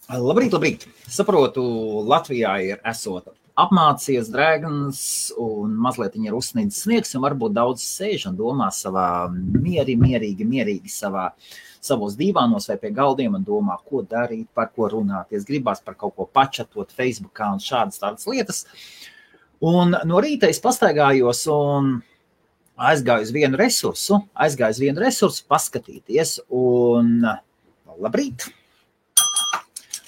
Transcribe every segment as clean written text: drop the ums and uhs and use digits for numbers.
Labrīt, labrīt. Saprotu, Latvijā ir esot apmācies drēgns un mazliet ir uzsnīdis sniegs, un varbūt daudz sēž un domā savā mierīgi savos dīvānos vai pie galdiem un domā, ko darīt, par ko runāties, gribās par kaut ko pačatot Facebookā un šādas tādas lietas. Un no rīta es pastaigājos un aizgāju uz vienu resursu paskatīties un labrīt.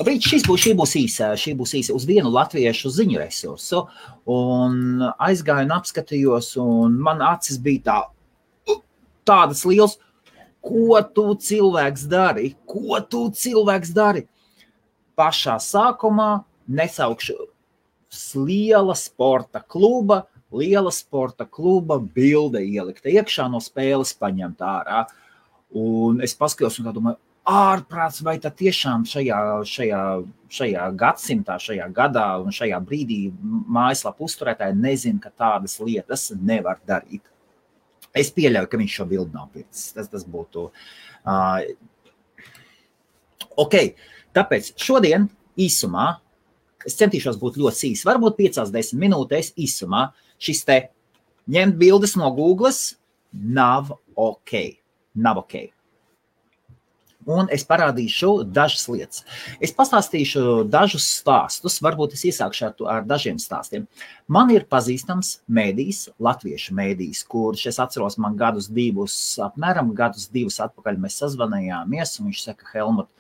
Labrīt, šī būs īsa uz vienu latviešu ziņu resursu, un aizgāju un apskatījos, un man acis bija tādas liels, ko tu cilvēks dari? Pašā sākumā nesaukšu liela sporta kluba bilde ielikta iekšā no spēles paņemt ārā, un es paskatījos un tā domāju, ārprāts, vai tad tiešām šajā gadsimtā, šajā gadā un šajā brīdī mājaslapu uzturētāji nezina, ka tādas lietas nevar darīt. Es pieļauju, ka viņš šo bildi nav pircis. Tas būtu... Ok, tāpēc šodien īsumā, es centīšos būt ļoti īsi, varbūt 5-10 minūtēs īsumā, šis te ņemt bildes no Googles nav ok. Un es parādīšu dažas lietas. Es pastāstīšu dažus stāstus, varbūt es iesākšu ar dažiem stāstiem. Man ir pazīstams mēdījis, latviešu mēdījis, kurš es atceros man apmēram gadus divus atpakaļ mēs sazvanījāmies, un viņš saka, Helmut,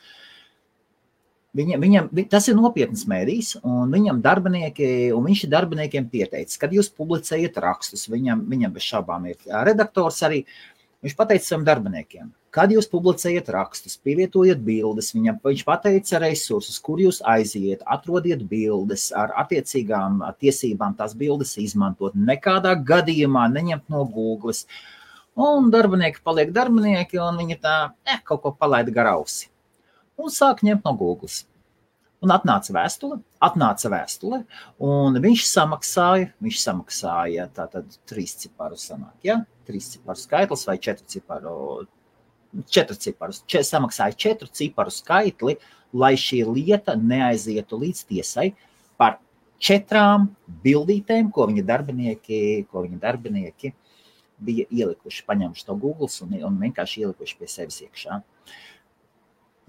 tas ir nopietnas mēdījis, un viņš ir darbiniekiem pieteicis, kad jūs publicējat rakstus, viņam bez šaubām ir redaktors arī, viņš pateica saviem darbiniekiem, kad jūs publicējat rakstus, pievietojat bildes, viņš pateica resursus, kur jūs aiziet, atrodiet bildes ar attiecīgām tiesībām tās bildes izmantot, nekādā gadījumā neņemt no Googles. Un darbinieki paliek darbinieki, un viņi kaut ko palaida gar ausi. Un sāk ņemt no Googles. Un atnāca vēstule, un viņš samaksāja tātad 3 ciparu sanāk, ja? 3 ciparu skaitlis vai 4 ciparus. Samaksāja 4 ciparu skaitli, lai šī lieta neaizietu līdz tiesai par 4 bildītēm, ko viņa darbinieki bija ielikuši, paņemši to Googles un vienkārši ielikuši pie sevis iekšā.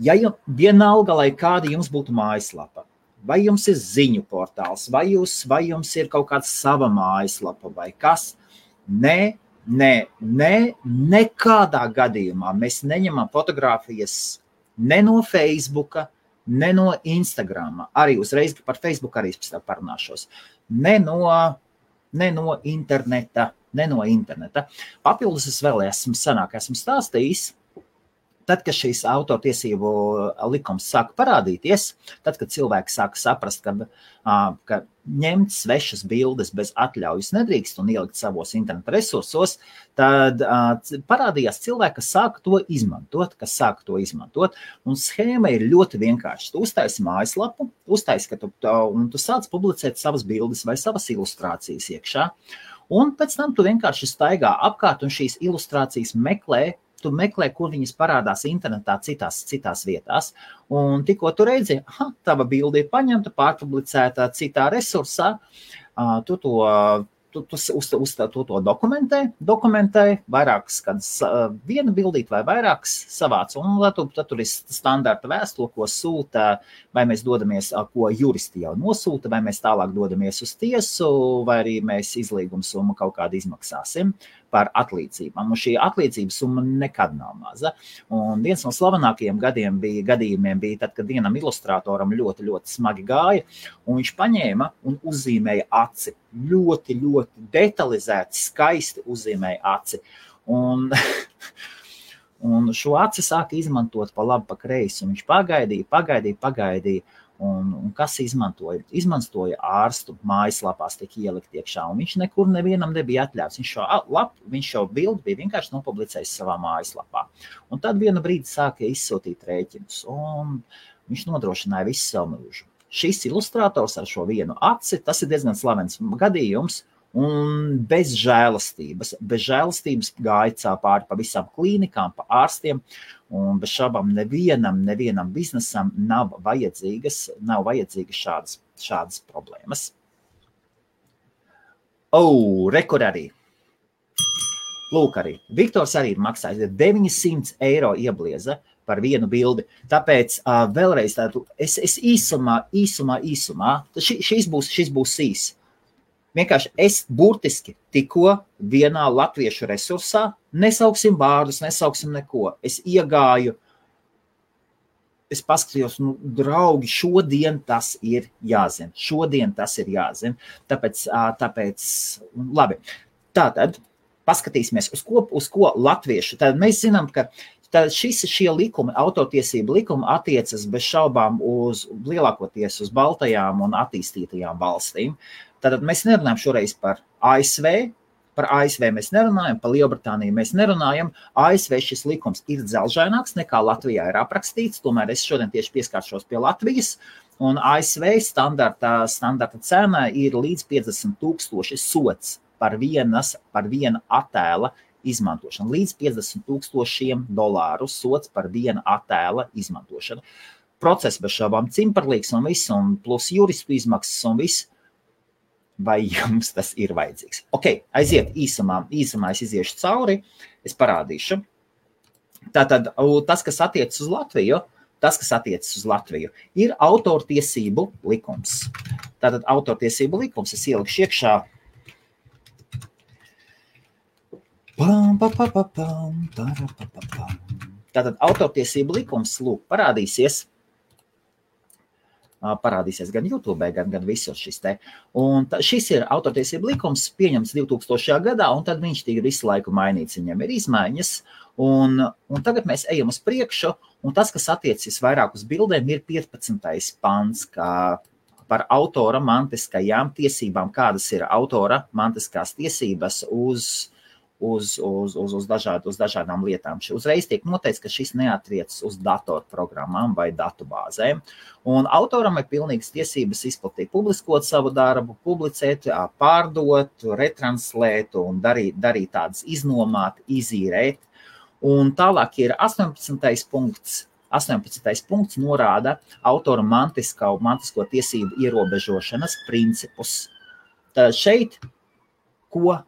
Ja vienalga, lai kāda jums būtu mājaslapa, vai jums ir ziņu portāls, vai jums ir kaut kāda sava mājaslapa vai kas, nekādā gadījumā mēs neņemam fotogrāfijas ne no Facebooka, ne no Instagrama, arī uzreiz par Facebook arī parunāšos, ne no interneta. Papildus es vēl esmu stāstījis, tad, kad šīs autortiesību likums sāka parādīties, tad, kad cilvēki sāka saprast, ka ņemt svešas bildes bez atļaujas nedrīkst un ielikt savos interneta resursos, tad parādījās cilvēki, kas sāka to izmantot, un schēma ir ļoti vienkārša. Tu uztaisi mājaslapu, un tu sāc publicēt savas bildes vai savas ilustrācijas iekšā, un pēc tam tu vienkārši staigā apkārt un šīs ilustrācijas meklē, kur viņas parādās internetā citās vietās. Un tikko tu redzi, tava bilde ir paņemta, pārpublicēta citā resursā, tu to dokumentē vairākas, kad viena bildīt vai vairākas savāc, un tad tur ir standarta vēstule, ko sūta, vai mēs dodamies, ko juristi jau nosūta, vai mēs tālāk dodamies uz tiesu, vai arī mēs izlīguma summu kaut kādu izmaksāsim par atlīdzībām. Un šī atlīdzības summa nekad nav maza. Un viens no slavenākajiem gadījumiem bija tad, kad vienam ilustrātoram ļoti, ļoti smagi gāja, un viņš paņēma un uzzīmēja aci. Ļoti, ļoti detalizēti, skaisti uzzīmēja aci. Un šo aci sāka izmantot pa labi, pa kreisi. Un viņš pagaidīja. Un kas izmantoja? Izmantoja ārstu mājaslapās tiek ielikt iekšā, un viņš nekur nevienam nebija atļauts. Viņš šo bildi bija vienkārši nopublicējis savā mājaslapā. Un tad vienu brīdi sāka izsūtīt rēķinus, un viņš nodrošināja visu savu mūžu. Šis ilustrators ar šo vienu aci, tas ir diezgan slavens gadījums, un bez žēlastības. Bez žēlastības gāja pāri pa visām klīnikām, pa ārstiem, un bez šābām nevienam biznesam nav vajadzīgas šādas problēmas. Rekur arī. Lūk arī. Viktors arī ir maksājis 900 eiro ieblieza par vienu bildi. Tāpēc vēlreiz tādu, es īsumā, šis būs īs. Vienkārši es burtiski tikko vienā latviešu resursā, nesauksim vārdus, nesauksim neko. Es iegāju, es paskatījos, draugi, šodien tas ir jāzina. Tāpēc, labi. Tātad, paskatīsimies, uz ko latviešu. Tad mēs zinām, ka šie likumi, autortiesību likumi attiecas bez šaubām lielākoties uz baltajām un attīstītajām valstīm. Tātad mēs nerunājam šoreiz par ASV. Par ASV mēs nerunājam, par Lielbritāniju mēs nerunājam. ASV šis likums ir dzelžaināks nekā Latvijā ir aprakstīts, tomēr es šodien tieši pieskāršos pie Latvijas. Un ASV standarta cena ir līdz 50,000 sots par viena attēla izmantošanu. Līdz $50,000 sots par viena attēla izmantošanu. Process bez šaubām cimperlīgs un viss, un plus juristu izmaksas un viss. Vai jums tas ir vajadzīgs? Ok, aiziet īsumā es iziešu cauri, es parādīšu. Tātad tas, kas attiecas uz Latviju, ir autortiesību likums. Tātad autortiesību likums, es ielikšu iekšā. Tātad autortiesību likums, lūk, parādīsies gan YouTube, gan visur šis te. Un šis ir autortiesību likums, pieņemts 2000. gadā, un tad viņš tika visu laiku mainīts, viņam ir izmaiņas, un tagad mēs ejam uz priekšu, un tas, kas attiecas vairāk uz bildēm, ir 15. pants, kā par autora mantiskajām tiesībām, kādas ir autora mantiskās tiesības uz dažādām lietām. Uzreiz tiek noteikts, ka šis neatriecas uz datorprogrammām vai datubāzēm. Un autoram ir pilnīgas tiesības izplatīt, publiskot savu darbu, publicēt, pārdot, retranslēt un darīt tādas iznomāt, izīrēt. Un tālāk ir 18. punkts. 18. punkts norāda autora mantisko tiesību ierobežošanas principus. Tad šeit, ko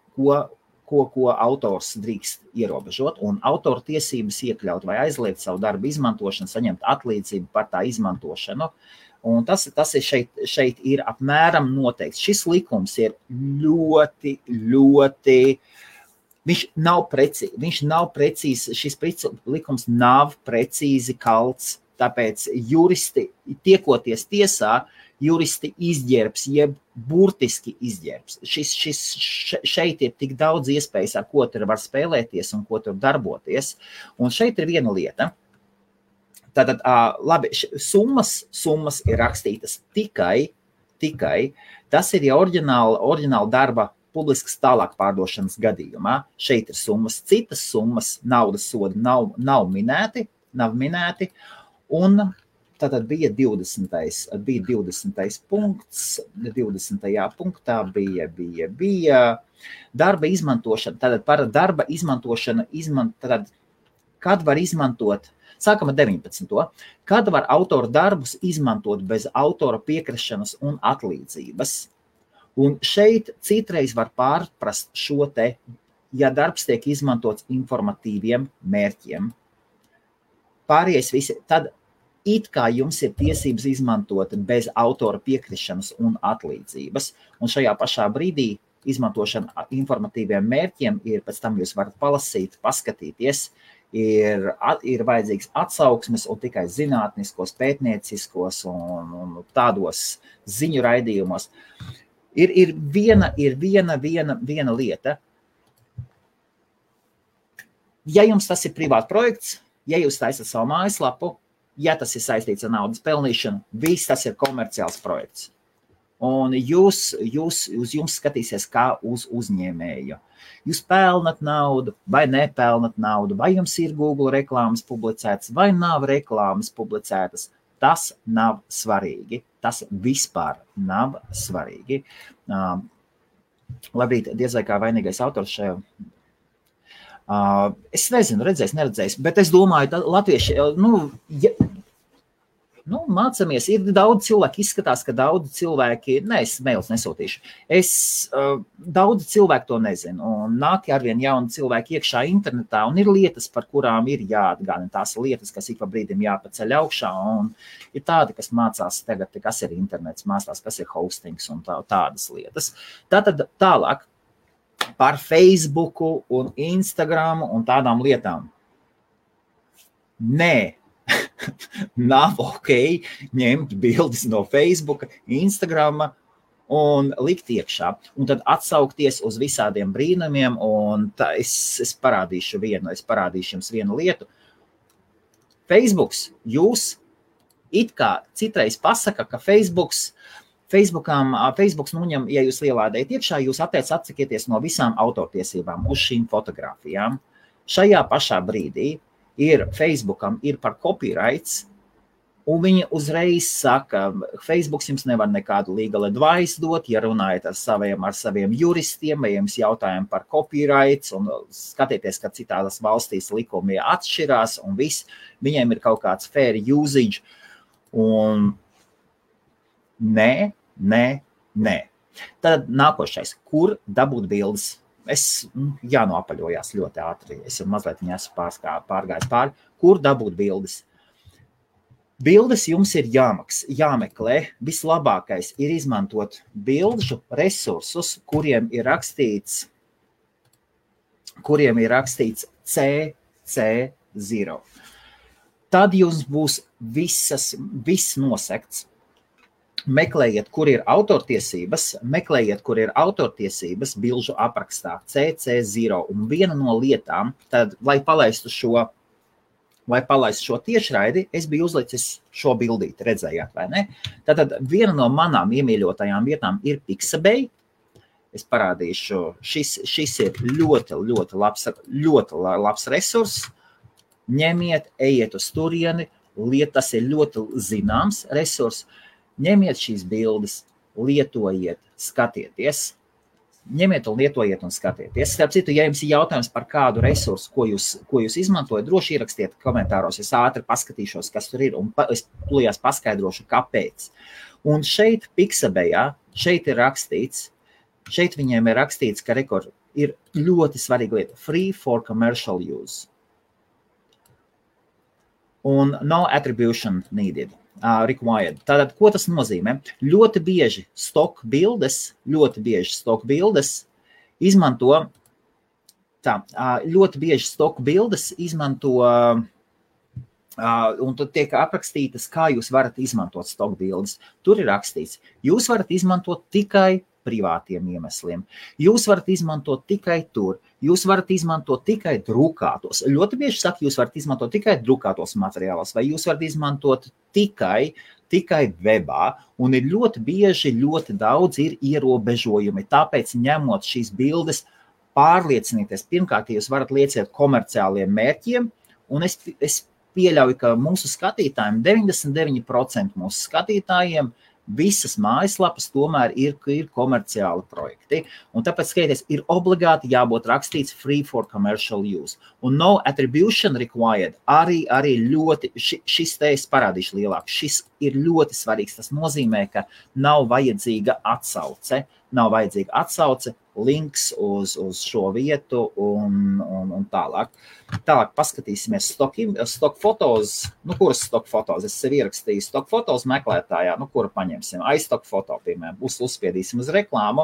autors drīkst ierobežot, un autora tiesības iekļaut vai aizliegt savu darbu izmantošanu, saņemt atlīdzību par tā izmantošanu. Un tas ir šeit ir apmēram noteikts. Šis likums ir ļoti, viņš nav precīzi, šis likums nav precīzi kalts, tāpēc juristi, tiekoties tiesā, juristi izģērbs, jeb burtiski izģērbs. Šeit ir tik daudz iespējas, ar ko tur var spēlēties un ko tur darboties. Un šeit ir viena lieta. Tātad, labi, summas ir rakstītas tikai, tas ir jau oriģināla darba publiskas tālāk pārdošanas gadījumā. Šeit ir summas, citas summas, naudas sodi nav minēti, un tātad bija 20. punkts, 20. punktā bija darba izmantošana. Tātad par darba izmantošanu, kad var izmantot, sākam ar 19. Kad var autora darbus izmantot bez autora piekrišanas un atlīdzības. Un šeit citreiz var pārprast šo te, ja darbs tiek izmantots informatīviem mērķiem. Pārējais visi, tad it kā jums ir tiesības izmantot bez autora piekrišanas un atlīdzības, un šajā pašā brīdī izmantošana informatīviem mērķiem ir, pēc tam jūs varat palasīt, paskatīties, ir vajadzīgs atsauksmes un tikai zinātniskos, pētnieciskos un tādos ziņu raidījumos. Ir viena lieta. Ja jums tas ir privāts projekts, ja jūs taisat savu mājaslapu, ja tas ir saistīts ar naudas pelnīšanu, viss tas ir komerciāls projekts. Un uz jums skatīsies kā uz uzņēmēju. Jūs pelnat naudu vai nepelnat naudu, vai jums ir Google reklāmas publicētas, vai nav reklāmas publicētas. Tas nav svarīgi. Tas vispār nav svarīgi. Labrīt, diez vai kā vainīgais autors šajā. Es nezinu, neredzējis, bet es domāju, latvieši, mācamies, ir daudz cilvēku, izskatās, ka daudz cilvēki, es mails nesūtīšu, daudz cilvēku to nezinu, un nāk arvien jauni cilvēki iekšā internetā, un ir lietas, par kurām ir jāatgādina, tās lietas, kas ik pa brīdim jāpaceļ augšā, un ir tādi, kas mācās tagad, kas ir internets, mācās, kas ir hostings un tādas lietas. Tātad tālāk par Facebooku un Instagramu un tādām lietām. Nē. Nav ok ņemt bildes no Facebooka, Instagrama un likt iekšā. Un tad atsaukties uz visādiem brīnumiem, un es parādīšu jums vienu lietu. Facebooks, jūs it kā citreiz pasaka, ka Facebooks nuņem, ja jūs ielādējat iekšā, jūs atsakieties no visām autortiesībām uz šīm fotogrāfijām. Šajā pašā brīdī Facebookam ir par copyrights, un viņi uzreiz saka, Facebooks jums nevar nekādu legal advice dot, ja runājat ar saviem juristiem, vai jums jautājumi par copyrights, un skatieties, ka citās valstīs likumi atšķirās, un viss, viņiem ir kaut kāds fair usage, un nē. Tad nākošais, kur dabūt bildes? Jānoapaļojās ļoti ātri. Es jau mazliet esmu pārgājis pāri. Kur dabūt bildes? Bildes jums ir jāmeklē. Vislabākais ir izmantot bildžu resursus, kuriem ir rakstīts CC0. Tad jums būs viss nosekts. Meklējiet, kur ir autortiesības, bilžu aprakstā CC0. Un viena no lietām, tad, lai palaistu šo tiešraidi, es biju uzlicis šo bildīti, redzējāt, vai ne? Tātad viena no manām iemīļotajām vietām ir Pixabay. Es parādīšu, šis ir ļoti labs resurs. Ņemiet, ejiet uz turieni, tas ir ļoti zināms resurs. Ņemiet šīs bildes, lietojiet, skatieties. Starp citu, ja jums ir jautājums par kādu resursu, ko jūs izmantojat, droši ierakstiet komentāros. Es ātri paskatīšos, kas tur ir, un es tūlījās paskaidrošu, kāpēc. Un šeit Pixabayā, šeit viņiem ir rakstīts, ka ir ļoti svarīga lieta. Free for commercial use. Un no attribution needed. Required. Tātad, ko tas nozīmē? Ļoti bieži stock bildes izmanto, un tad tiek aprakstītas, kā jūs varat izmantot stock bildes. Tur ir rakstīts, jūs varat izmantot tikai privātiem iemesliem. Jūs varat izmantot tikai tur. Jūs varat izmantot tikai drukātos. Ļoti bieži saka, jūs varat izmantot tikai drukātos materiālos, vai jūs varat izmantot tikai webā. Un ir ļoti bieži, ļoti daudz ir ierobežojumi. Tāpēc, ņemot šīs bildes, pārliecinieties. Pirmkārt, jūs varat lietot komerciāliem mērķiem, un es pieļauju, ka mūsu skatītājiem, 99% mūsu skatītājiem, visas mājaslapas tomēr ir komerciāli projekti. Un tāpēc, skaties, ir obligāti jābūt rakstīts free for commercial use. Un no attribution required arī ļoti, šis te es parādīšu lielāk, šis ir ļoti svarīgs. Tas nozīmē, ka nav vajadzīga atsauce, links uz šo vietu un tālāk. Tālāk paskatīsimies stock fotos. Kuras stock fotos? Es sev ierakstīju stock fotos meklētājā, kuru paņemsim. iStock foto, piemēram, uzspiedīsim uz reklāmu.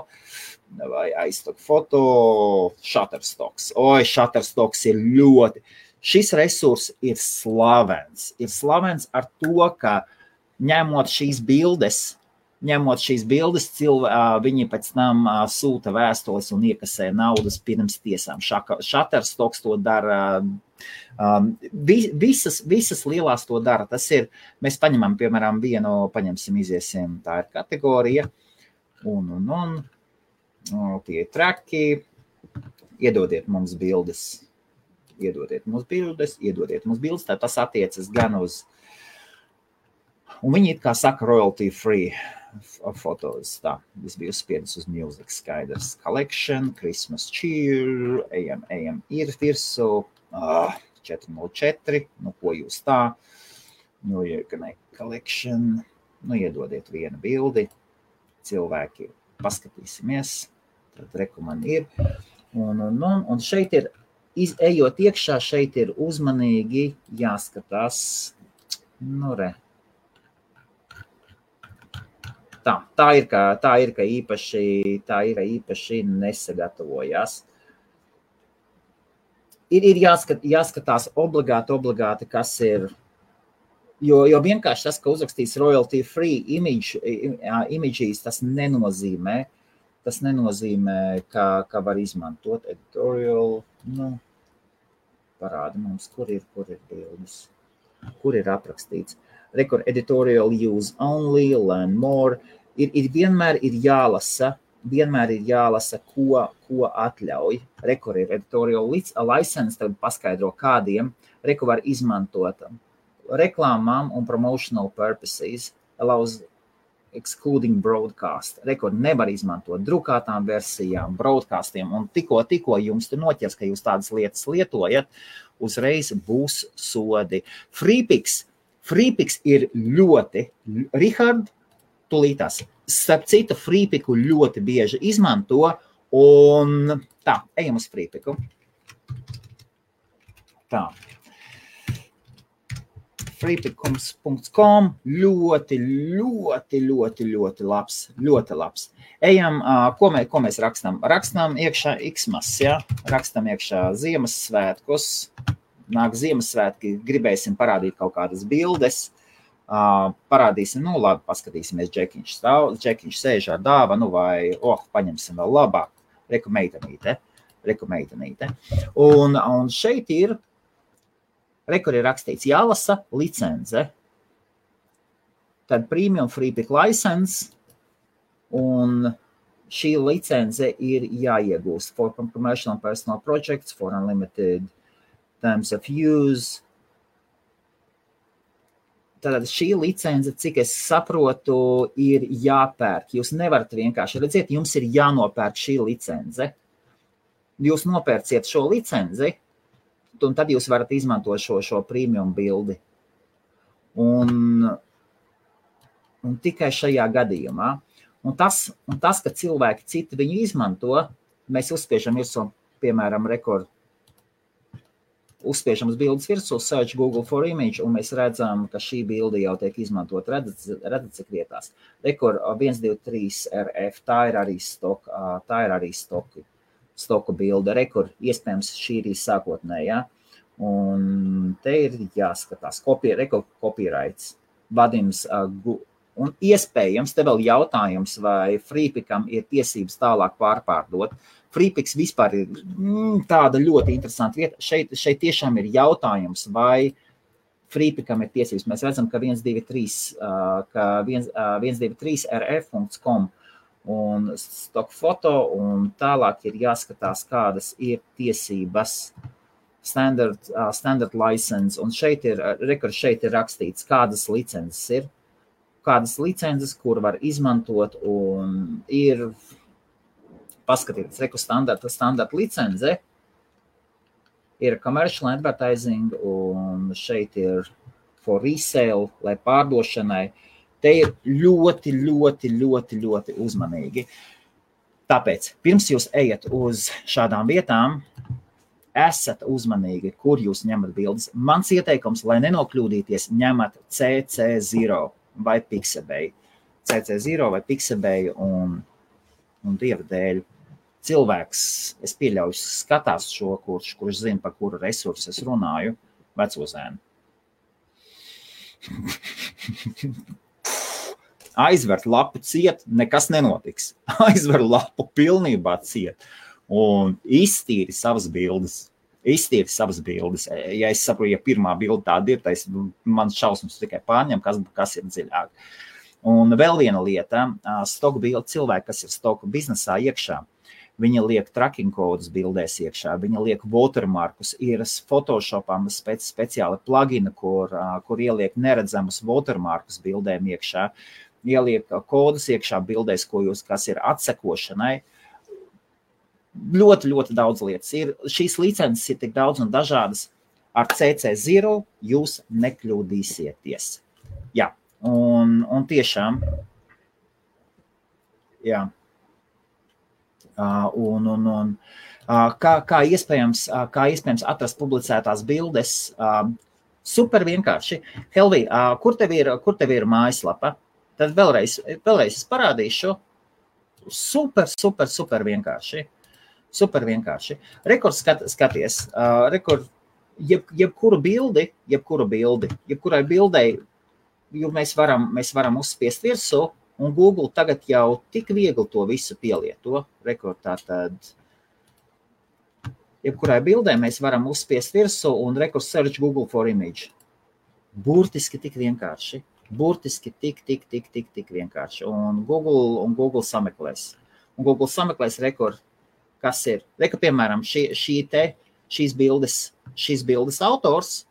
Vai iStock foto, Shutterstocks. Shutterstocks ir ļoti. Šis resurs ir slavens. Ir slavens ar to, ka ņemot šīs bildes, viņi pēc tam sūta vēstules un iekasē naudas pirms tiesām. Shutterstocks to dara, visas lielās to dara. Tas ir, mēs paņemam, piemēram, iziesim, tā ir kategorija, un tie ir traki, iedodiet mums bildes, tā tas attiecas gan uz, un viņi it kā saka royalty free. fotos, tā, es biju uzspiedis uz music, skaidrs, collection, Christmas cheer, ejam, ir virsū, 404, nu, ko jūs tā, nu, collection, nu, iedodiet vienu bildi, cilvēki, paskatīsimies, tad rekoman ir, un šeit ir, ejot iekšā, šeit ir uzmanīgi jāskatās, nu, re, tā ir, ka īpaši nesagatavojās. Ir jāskatās obligāti, kas ir, jo vienkārši tas, ka uzrakstīs royalty free images, tas nenozīmē, ka var izmantot editorial, nu, parādi mums, kur ir bildes, kur ir aprakstīts. Record editorial use only, learn more, vienmēr ir jālasa, ko atļauj. Record ir editorial license, tad paskaidro kādiem, Record var izmantot reklāmām un promotional purposes, allows excluding broadcast. Record nevar izmantot drukātām versijām, broadcastiem, un tikko jums tur noķers, ka jūs tādas lietas lietojat, uzreiz būs sodi. Freepix ir ļoti, Rihard, tulītās, starp citu, Freepiku ļoti bieži izmanto, un tā, ejam uz Freepiku. Tā. Freepikums.com ļoti labs. Ejam, ko mēs rakstam? Rakstam iekšā Xmas, ja? Rakstam iekšā Ziemassvētkus. Nāk Ziemassvētki, gribēsim parādīt kaut kādas bildes. Parādīsim, nu labi, paskatīsimies, Džekiņš sēž ar dāvanu vai, paņemsim vēl labāk, reku meitenīte. Un šeit ir, rekur ir rakstīts, jālasa licence, tad premium Freepik license, un šī licence ir jāiegūst for commercial and personal projects, for unlimited terms of use. Tātad šī licence, cik es saprotu, ir jāpērk. Jūs nevarat vienkārši redziet, jums ir jānopērk šī licence. Jūs nopērciet šo licenci, un tad jūs varat izmantot šo premium bildi. Un tikai šajā gadījumā. Un tas, ka cilvēki citi viņu izmanto, mēs uzspiežam virsū, piemēram, Record. Uzspiežam uz bildes virsū, search Google for image, un mēs redzam, ka šī bilde jau tiek izmantot, redzat cik vietās. Record 123 RF, tā ir arī stoku bilde. Record, iespējams, šī ir sākotnējā. Un te ir jāskatās, Record copyrights, Vadims, un iespējams, te vēl jautājums, vai Freepikam ir tiesības tālāk pārpārdot. Freepiks vispār ir tāda ļoti interesanta vieta. Šeit tiešām ir jautājums, vai Freepikam ir tiesības. Mēs redzam, ka 123rf.com un stock foto, un tālāk ir jāskatās, kādas ir tiesības standard license, un šeit ir rakstīts, kādas licences, kur var izmantot, un ir paskatieties, reku standarta licence, ir commercial advertising, un šeit ir for resale, lai pārdošanai. Te ir ļoti uzmanīgi. Tāpēc, pirms jūs ejat uz šādām vietām, esat uzmanīgi, kur jūs ņemat bildes. Mans ieteikums, lai nenokļūdīties, ņemat CC0 vai Pixabay. CC0 vai Pixabay, un Dieva dēļ. Cilvēks, es pieļauju, skatās šo, kurš zina, par kuru resursu es runāju, vecozēnu. Aizver lapu ciet, nekas nenotiks. Aizver lapu pilnībā ciet un iztīri savas bildes. Ja es saprotu, ja pirmā bilde tāda ir, tad man šausmas tikai pārņem, kas ir dziļāk. Un vēl viena lieta, stoku bilde, cilvēki, kas ir stoku biznesā iekšā, viņi liek tracking kodus bildēs iekšā, viņi liek watermarkus, ir Photoshopam speciāli plugini, kur ieliek neredzamus watermarkus bildēm iekšā. ieliek kodus iekšā bildēs, kas ir atsekošanai. Ļoti, ļoti daudz lietas ir. Šīs licences ir tik daudz un dažādas. Ar CC0 jūs nekļūdīsieties. Jā, un tiešām, jā. Kā iespējams atrast publicētās bildes, super vienkārši. Helvi, kur tev ir mājaslapa? Tad vēlreiz es parādīšu. Super vienkārši. Super vienkārši. Rekords skaties, jebkurai bildei, jo mēs varam uzspiest virsū, un Google tagad jau tik viegli to visu pielieto. Rekordā tad, jebkurai bildei mēs varam uzspiest virsū un search Google for image. Burtiski tik vienkārši. Burtiski tik vienkārši. Un Google sameklēs. Un Google sameklēs rekord. Kas ir? Piemēram, šīs bildes autors,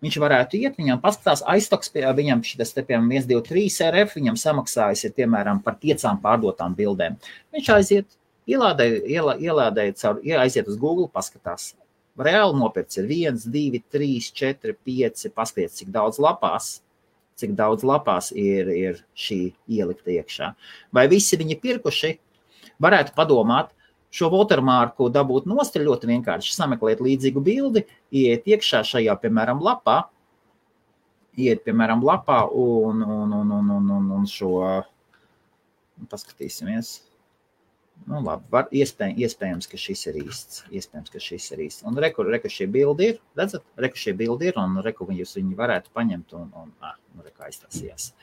viņš varētu iet, viņam paskatās aiztoks, viņam šitas te, piemēram, 1, 2, 3 RF, viņam samaksājas ir, piemēram, par 5 pārdotām bildēm. Viņš aiziet, aiziet uz Google, paskatās. Reāli nopirts ir 1, 2, 3, 4, 5, paskatās, cik daudz lapās ir šī ielikta iekšā. Vai visi viņi pirkuši? Varētu padomāt, šo watermarku dabūt nost ir ļoti vienkārši. Sameklēt līdzīgu bildi, iet iekšā šajā, piemēram, lapā, un šo, paskatīsimies. Nu, labi, iespējams, ka šis ir īsts. Un reku šie bildi ir, redzat? Reku šie bildi ir, un reku viņi varētu paņemt, un reku aiztasījās.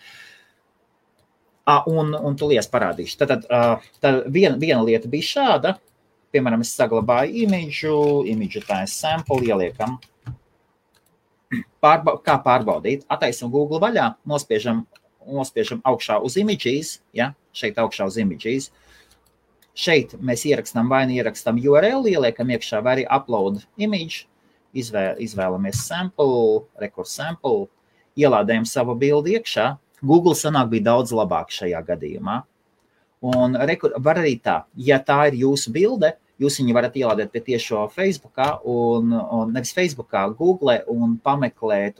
Un tu lies parādīšu. Tad viena lieta bija šāda. Piemēram, es saglabāju imidžu tā es sample ieliekam. Kā pārbaudīt? Ataisam Google vaļā, nospiežam augšā uz images, ja? Šeit augšā uz images. Šeit mēs ierakstām URL, ieliekam iekšā vai arī upload image, izvēlamies sample, record sample, ielādējam savu bildi iekšā. Google sanāk bija daudz labāk šajā gadījumā. Un var arī tā, ja tā ir jūsu bilde, jūs viņu varat ielādēt pie tiešo Facebookā, un nevis Facebookā, Google un pameklēt.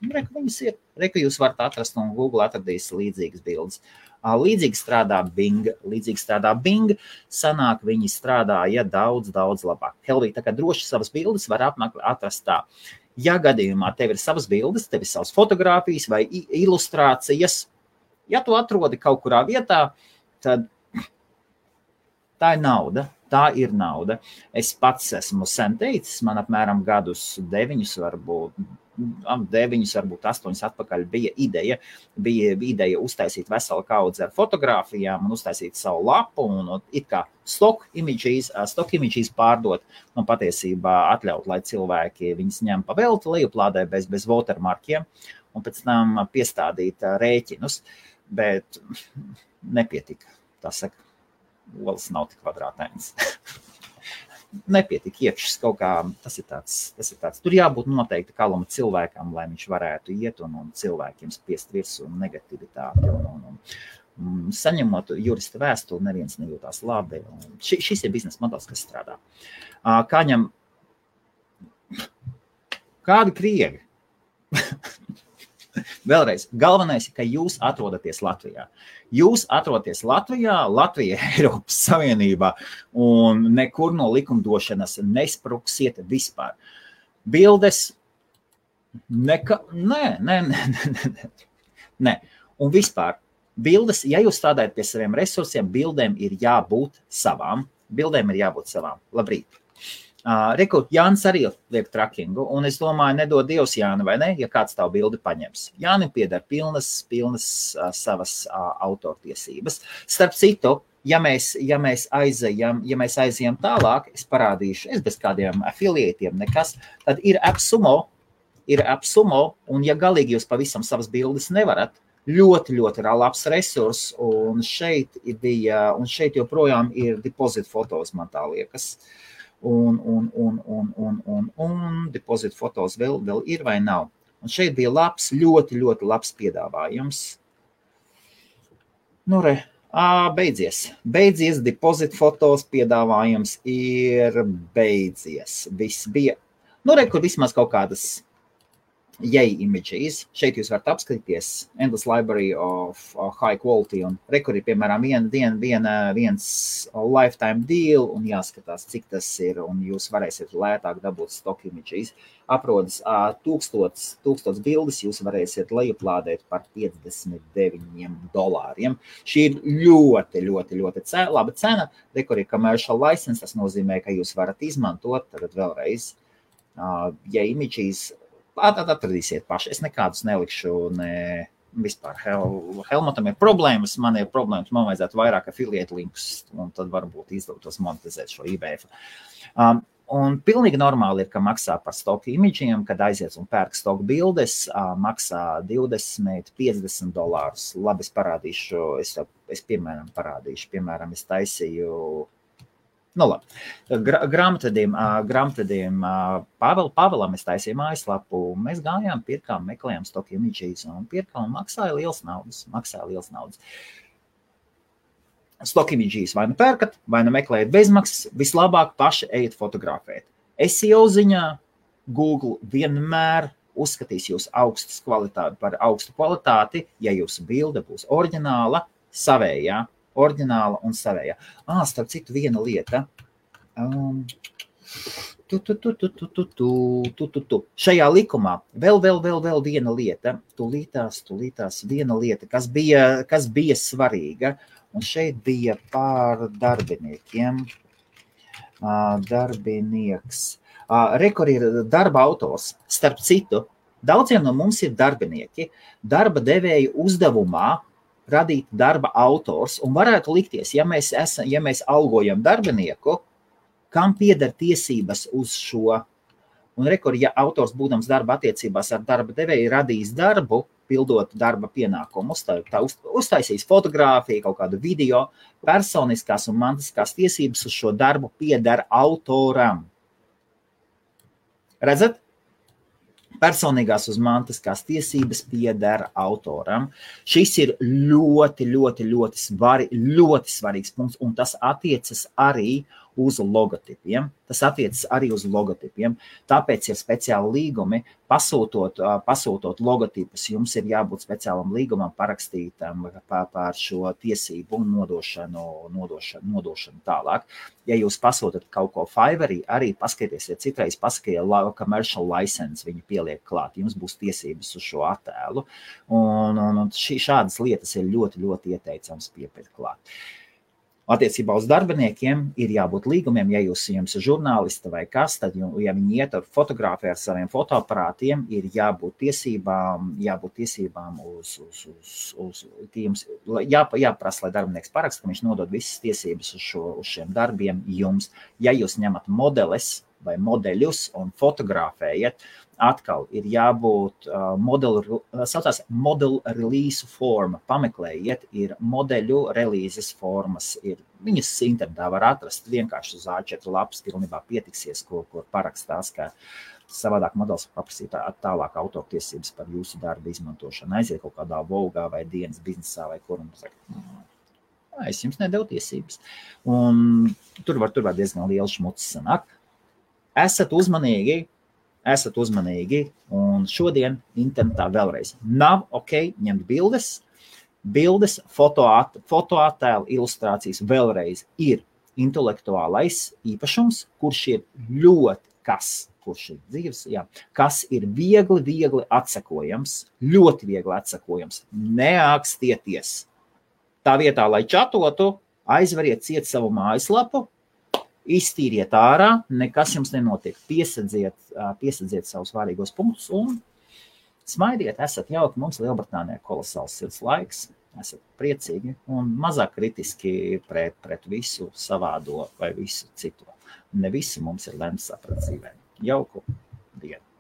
Viņas ir, jūs varat atrast, un Google atradīs līdzīgas bildes. Līdzīgi strādā Bing, sanāk viņi strādāja daudz labāk. Helvī, tā kā droši savas bildes var atrast tā. Ja gadījumā tev ir savas bildes, tev ir savas fotogrāfijas vai ilustrācijas, ja tu atrodi kaut kurā vietā, tad tā ir nauda. Es pats esmu sen teicis, man apmēram gadus 9, varbūt 8 atpakaļ bija ideja uztaisīt veselu kaudzi ar fotogrāfijām un uztaisīt savu lapu un it kā stock images pārdot un patiesībā atļaut, lai cilvēki viņas ņem pa velti, lejuplādē bez watermarkiem un pēc tam piestādīt rēķinus, bet nepietika. Tā saka, olas nav tik kvadrātains. Nepietika iekšas kaut kā, tas ir tāds. Tur jābūt noteikti kaluma cilvēkam, lai viņš varētu iet un cilvēkiem spiest virsū negativitāti. Un saņemot jurista vēstuli, neviens nejūtās labi. Šis ir biznesa modelis, kas strādā. Kādi krievi? Vēlreiz, galvenais ir, ka jūs atrodaties Latvijā. Jūs atrodaties Latvijā, Latvija Eiropas Savienībā un nekur no likumdošanas nespruksiet vispār. Bildes, nē. Un vispār, bildes, ja jūs strādājat pie saviem resursiem, bildēm ir jābūt savām. Labrīt. Jānis arī liek trackingu, un es domāju, nedod Dievs Jāni, vai ne, ja kāds tavu bildi paņems. Jānim pieder pilnas savas autortiesības. Starp citu, ja mēs aizejam tālāk, es parādīšu, es bez kādiem affiliētiem nekas, tad ir AppSumo, un ja galīgi jūs pavisam savas bildes nevarat, ļoti labs resurs, un šeit joprojām ir deposit fotos, man tā liekas. Un deposit fotos vēl ir vai nav. Un šeit bija ļoti labs piedāvājums. Beidzies, deposit fotos piedāvājums ir beidzies. Viss bija, kur vismaz kaut kādas images. Šeit jūs varat apskatīties endless library of high quality un kur ir, piemēram, viens lifetime deal un jāskatās, cik tas ir, un jūs varēsiet lētāk dabūt stock images. Aprodas 1000 bildes, jūs varēsiet lejuplādēt par $59. Šī ir ļoti laba cena. Kur ir commercial license, tas nozīmē, ka jūs varat izmantot, tad vēlreiz, images atradīsiet paši. Es nekādus nelikšu, ne vispār. Helmutam ir problēmas, man ir problēmas, man vajadzētu vairāk affiliate linkus, un tad varbūt izdotos monetizēt šo IBF. Un pilnīgi normāli ir, ka maksā par stock imidžiem, kad aiziet un pērk stock bildes, maksā $20–50. Labi, es parādīšu, es piemēram parādīšu. Piemēram, es taisīju, labi, grāmatvediem Pavelam es taisīju mājaslapu, mēs gājām, pirkām, meklējām stock images un pirkām un maksāja liels naudas. Stock images vai nu pērkat, vai nu meklējat bezmaksas, vislabāk paši ejat fotografēt. SEO ziņā Google vienmēr uzskatīs jūs par augstu kvalitāti, ja jūsu bilde būs oriģināla, savējā. Oriģināla un savējā. Starp citu, viena lieta. Šajā likumā vēl viena lieta. Tūlītās viena lieta, kas bija svarīga. Un šeit bija par darbiniekiem. Darbinieks. Kur ir darba autors. Starp citu, daudziem no mums ir darbinieki. Darba devēja uzdevumā radīt darba autors, un varētu likties, ja mēs algojam darbinieku, kam pieder tiesības uz šo. Un ja autors būdams darba attiecībās ar darba devēju radīs darbu, pildot darba pienākumus, tā uztaisīs fotogrāfiju, kaut kādu video, personiskās un mantiskās tiesības uz šo darbu pieder autoram. Redzat? Personīgās uz mantiskās tiesības pieder autoram. Šis ir ļoti svarīgs punkts, un tas attiecas arī uz logotipiem. Tāpēc ir speciāli līgumi. Pasūtot logotipus, jums ir jābūt speciālam līgumam parakstītam par šo tiesību un nodošanu tālāk. Ja jūs pasūtat kaut ko Fiverrī, arī paskatieties, citreiz paskatiet commercial license, viņi pieliek klāt, jums būs tiesības uz šo attēlu. Un šādas lietas ir ļoti ieteicams piepirkt klāt. Attiecībā uz darbiniekiem ir jābūt līgumiem, ja jums ir žurnālisti vai kas, tad, ja viņi iet ar fotogrāfiju ar saviem fotoaparātiem, ir jābūt tiesībām jums jāprasa, lai darbinieks paraksta, ka viņš nodod visas tiesības uz šiem darbiem jums. Ja jūs ņemat modeles vai modeļus un fotografējat, atkal ir jābūt model release forma. Pameklējiet, ir modeļu relīzes formas. Viņas internetā var atrast vienkārši uz A4 lapas, pilnībā pietiksies, kur parakstās, ka savādāk modelis paprasīt tālāk autortiesības par jūsu darbu izmantošanu. Aiziet kaut kādā Vogā vai dienas biznesā vai kur un saka, es jums nedevu tiesības. Un tur var diezgan liels šmucis sanāk. Esat uzmanīgi, un šodien internetā vēlreiz nav ok ņemt bildes, fotoattēlu, ilustrācijas vēlreiz ir intelektuālais īpašums, kurš ir kurš ir dzīves, kas ir viegli atsekojams, ļoti viegli atsekojams. Neākstieties. Tā vietā, lai čatotu, aizveriet ciet savu mājaslapu, iztīriet ārā, nekas jums nenotiek. Piesadziet savus vārīgos punktus un smaidiet, esat jauki. Mums Lielbritānijā kolosāls sirds laiks, esat priecīgi un mazāk kritiski pret visu savādo vai visu citu. Ne visi mums ir lemts saprat dzīvē. Jauku dienu!